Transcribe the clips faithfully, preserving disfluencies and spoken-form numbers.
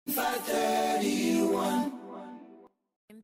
five thirty-one.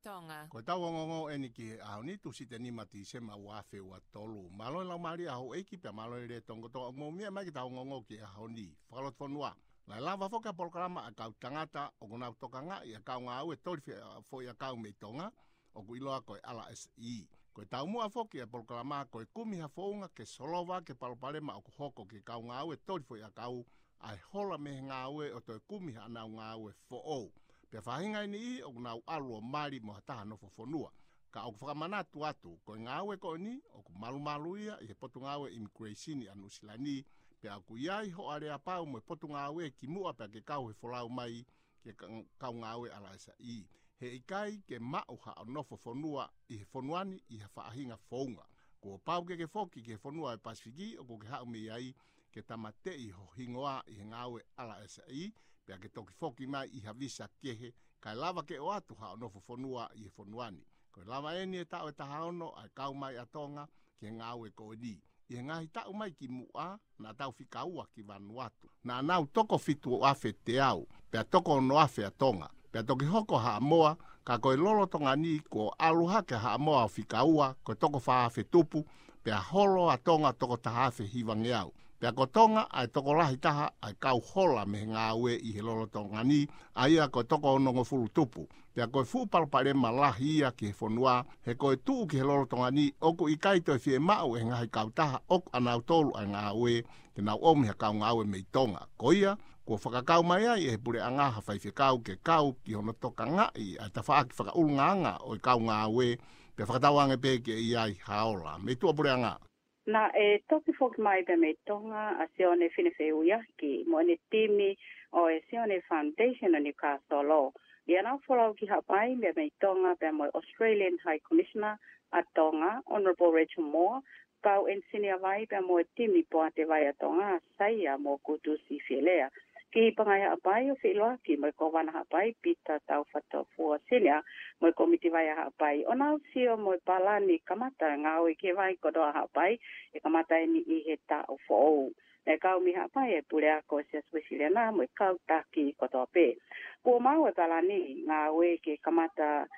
Tonga. Ko ʻetau ongoongo eni ki he ʻaho ni, Tūsite nima Tīsema ua afe ua tolu. Mālō e laumālie ʻa houʻeiki pea mālō e lelei tonga kotoa ʻoku mou meʻa mai ki heʻetau ongoongo ki he ʻaho ni. Fakalotofonua. Naʻe lava foki ʻa e polokalama ʻa e kau tangata ʻoku nau tokangaʻi ʻa e kau ngāue toli fe-, foʻiʻakau mei Tonga, ʻoku ʻiloa ko e R S E. Ko e taumuʻa foki ʻa e polokalama ko e kumi ha founga ke solova ki he palopalema ʻoku hoko ki he kau ngāue toli foʻiʻakau, ʻa e hola mei he ngāue ʻo toe kumi haʻanau ngāue foʻou. Pea faʻahinga ʻe niʻihi ʻoku nau ʻalu ʻo mali mo ha taha nofo fonua. Ka ʻoku fakamanatu atu, ko e ngāue ko eni, ʻoku malumalu ia ʻi he Potungāue Immigration ʻa Nuʻu Sila ni, pea ʻoku ʻi ai hoʻo aleapau mo e Potungāue kimuʻa pea ke kau he folau mai ki he ka-, kau ngāue R S E. He ʻikai ke maʻu haʻo nofo fonua ʻi he fonua ni ʻi ha faʻahinga founga. Kuo pau ke ke foki ki he fonua ʻo e Pasifiki ʻoku ke haʻu mei ai ke tāmateʻi ho hingoa ʻi he ngāue R S E, pea ke toki foki mai ʻi ha visa kehe, kae lava ke ʻoatu haʻo nofo fonua ʻi he fonua ni. Ko e lava eni e taʻu ʻe taha ono ʻa e kau mai ʻa Tonga ki he ngāue ko eni. ʻI he ngaahi taʻu mai kimuʻa, naʻa tau fika ua ki Vanuatu. Naʻa nau toko fitu afe teau, pea toko ono afe ʻa Tonga. Pea toki hoko ʻa Haʻamoa, ka ko e lolotonga ni kuo ʻalu hake ʻa Haʻamoa ʻo fika ua, ko e toko fā afe tupu, pea holo ʻa Tonga toko taha afe hivangeau. Pea ko Tonga ʻa e tokolahi taha ʻa e kau hola mei he ngāue ʻi he lolotonga ni, ʻa ia ko e toko onongofulu tupu. Pea ko e fuʻu palopalema lahi ia ki he fonua, he ko e tuʻu ki he lolotonga ni ʻoku ʻikai toe fiemaʻu ʻe he ngaahi kautaha ʻoku ʻanautolu ʻa e ngāue, ke nau ʻomi ha kau ngāue mei Tonga. Ko ia, kuo fakakau mai ai ʻe he puleʻanga ha faifekau ke kau ki hono tokangaʻi ʻa e tafaʻaki fakaʻulungaanga ʻo e kau ngāue, pea fakatauange pē ke ʻi ai ha ola. Mei tuʻa puleʻanga. Naʻe toki foki mai pea mei Tonga ʻa Sione Finefeuiaki mo ʻene timi ʻo e Sione Foundation ʻo Newcastle. ʻI heʻenau folau ki Haʻapai pea mei Tonga pea mo e Australian High Commissioner ʻa Tonga, Honourable Rachel Moore, kau ʻenisinia vai pea mo e timi poate vai ʻa Tonga, Saia mo Kutusi Fielea. Ki Pangai Haʻapai ʻo feʻiloaki mo e Kōvana Haʻapai, Pita Taufatofua Senior, mo e Kōmiti Vai ʻa Haʻapai, ʻo nau sio mo e palani kamata e ngāue ki he vai kotoa ʻa Haʻapai, ʻe kamata eni ʻi he taʻu foʻou. Naʻe kau mei Haʻapai e puleako ʻo e Siasi Uēsiliana mo e kau taki kotoa pē. Kuo maʻu e palani ngāue ke kamata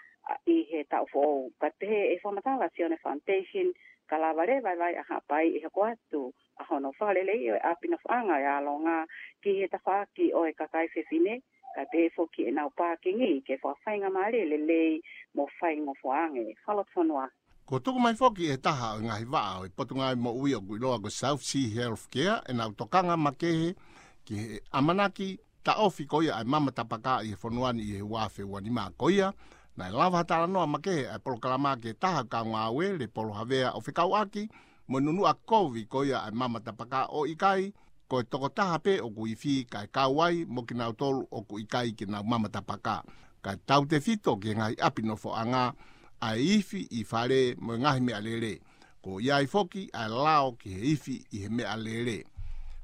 ʻi he taʻu foʻou. Ka pehē ʻe he fakamatala ʻa Sione Foundation, ka lava leva e vai ʻa Haʻapai ʻe hoko atu ʻa hono fakaleleiʻi ʻo e ʻapi nofoʻanga ʻo e ʻAlonga ki he tafaʻaki ʻo e kakai fefine, kae pehē foki ʻenau pākingi ke fakafaingamālie lelei mo faingofua ange. Fakalotofonua. Kuo tuku mai foki ʻe he taha ʻo e ngaahi vaʻa ʻo e Potungāue Moʻui ʻoku ʻiloa ko e South Sea Healthcare ʻenau tokanga makehe ki he ʻamanaki taʻofi ko ia ʻa e mama tapaka ʻi he fonua ni ʻi he ua afe ua nima. Ko ia, naʻe lava ha talanoa makehe ʻa e polokalama ki he taha kau ngāue, Lepolo Havea, ʻo fekauʻaki mo e nunuʻa kovi ko ia ʻa e mama tapaka, ʻo ʻikai ko e tokotaha pē ʻoku ifi kae kau ai mo kinautolu ʻoku ʻikai ke nau mama tapaka. Kae tautefito ki he ngaahi ʻapi nofoʻanga ʻa e ifi ʻi fale mo e ngaahi meʻalele. Kuo ʻi ai foki ʻa e lao ki he ifi ʻi he meʻalele.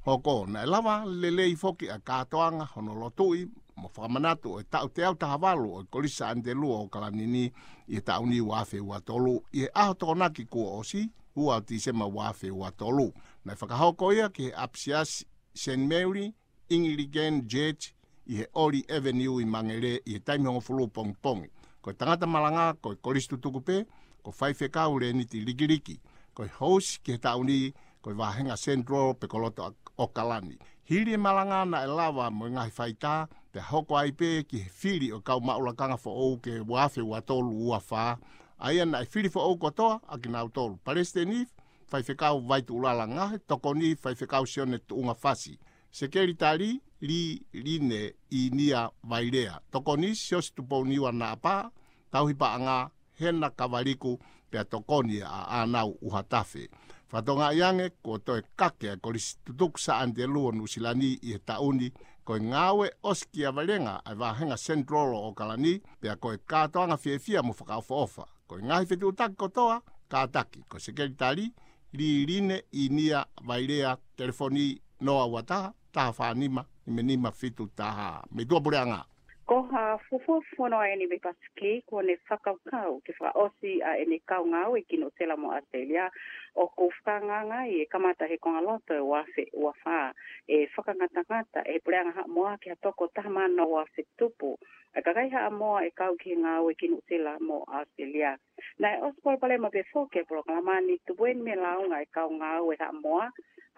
Hoko, naʻe lava lelei foki ʻa e kātoanga hono lotuʻi mo fakamanatu ʻo e taʻu teau taha valu ʻo e Kolisi Saʻani Telua ʻo ʻOkalani ni ʻi he taʻu ni ua afe ua tolu, ʻi he ʻaho Tokonaki kuo ʻosi, ua ʻo Tīsema ua afe ua tolu. Naʻe fakahoko ia ki he ʻapisiasi Saint Mary Anglican Church ʻi he Oli Avenue ʻi Mangere ʻi he taimi hongofulu pongipongi. Ko e tangata malanga ko e kolisi tutuku pē, ko Faifekau Lēniti Likiliki. Ko e host ki he taʻu ni, ko e Vāhenga Central pe ko Loto ʻOkalani. Hili e malanga naʻe lava mo e ngaahi faitā, pea hoko ai pē ki he fili ʻo e kau maʻu lakanga foʻou ki he ua afe ua tolu ua fā. ʻA ia naʻe fili foʻou kotoa ʻa kinautolu: Palesiteni, Faifekau Vaituʻulala Ngahe; Tokoni, Faifekau Sione Tuʻunga Fasi; Sekelitali, Liline ʻInia Vailea; Tokoni, Siosi Tupouniua Naʻapā; Tauhi Paʻanga, Hena Kavaliku; pea Tokoni ʻa ʻAnau ʻUhatafe. Fakatokangaʻi ange kuo toe kake ʻa e Kolisi Tutuku Saʻani Telua ʻo Nuʻu Sila ni ʻi he taʻu ni. Ko e ngāue ʻosikiavelenga ʻa e Vāhenga Central ʻo ʻOkalani, pea ko e kātoanga fiefia mo fakaʻofoʻofa. Ko e ngaahi fetuʻutaki kotoa, kātaki. Ko e Sekelitali, Liline ʻInia Vailea, telefoni noa ua taha, taha fā nima, nima nima fitu taha. Mei tuʻa puleʻanga. Ko ha fuofua fono ʻeni mei Pasifiki, kuo ne fakakaukau ke fakaʻosi ʻa ʻene kau ngāue ki Nuʻusila mo ʻAositelēlia, ʻoku fakaangaanga ai ʻe kamata he kongaloto ʻo e ua afe ua fā, ʻe fakangatangata ʻe he Puleʻanga Haʻamoa ki ha toko taha mano ua afe tupu ʻa e kakai Haʻamoa ʻe kau ki he ngāue ki Nuʻusila mo ʻAositelēlia. Naʻe ʻosi palopalema pē foki e polokalama ni, tupu ʻeni mei he lāunga ʻa e kau ngāue Haʻamoa,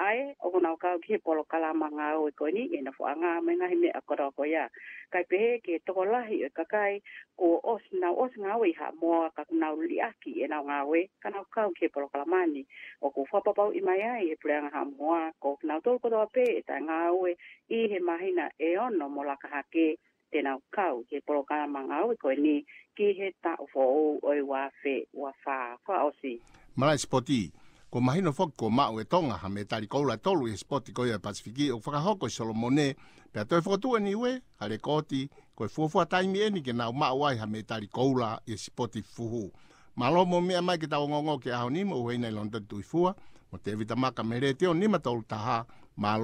ʻa ē ʻoku nau kau ki he polokalama ngāue ko eni ʻi he nofoʻanga mo e ngaahi meʻa kotoa ko ia. Kae pehē ki he tokolahi ʻo e kakai kuo ʻosi, nau ʻosi ngāue ʻi Haʻamoa ka kuo nau liʻaki ʻenau ngāue ka nau kau ki he polokalama ni. ʻOku fakapapauʻi mai ai ʻe he Puleʻanga Haʻamoa ko kinautolu kotoa pē ʻe taʻengāue ʻi he māhina ʻe ono mo laka hake, te nau kau ki he polokalama ngāue ko eni ki he taʻu foʻou ʻo e ua afe ua fā. Fakaʻosi. Malaʻe sipoti. Kuo mahino foki kuo maʻu ʻe Tonga ha mētali koula ʻe tolu ʻi he sipoti ko ia ʻo e Pasifiki ʻoku fakahoko ʻi Solomone, pea toe fokotuʻu ʻe Niue ha lekooti ko e fuofua taimi ʻeni ke nau maʻu ai ha mētali koula ʻi he sipoti fuhu. Mālō mo e meʻa mai ke tau ongoongo ki he ʻaho ni, mo ʻUhena ʻi Lonitoni Tuʻifua mo Tēvita Maka mei he Letiō nima tolu taha. Mālō.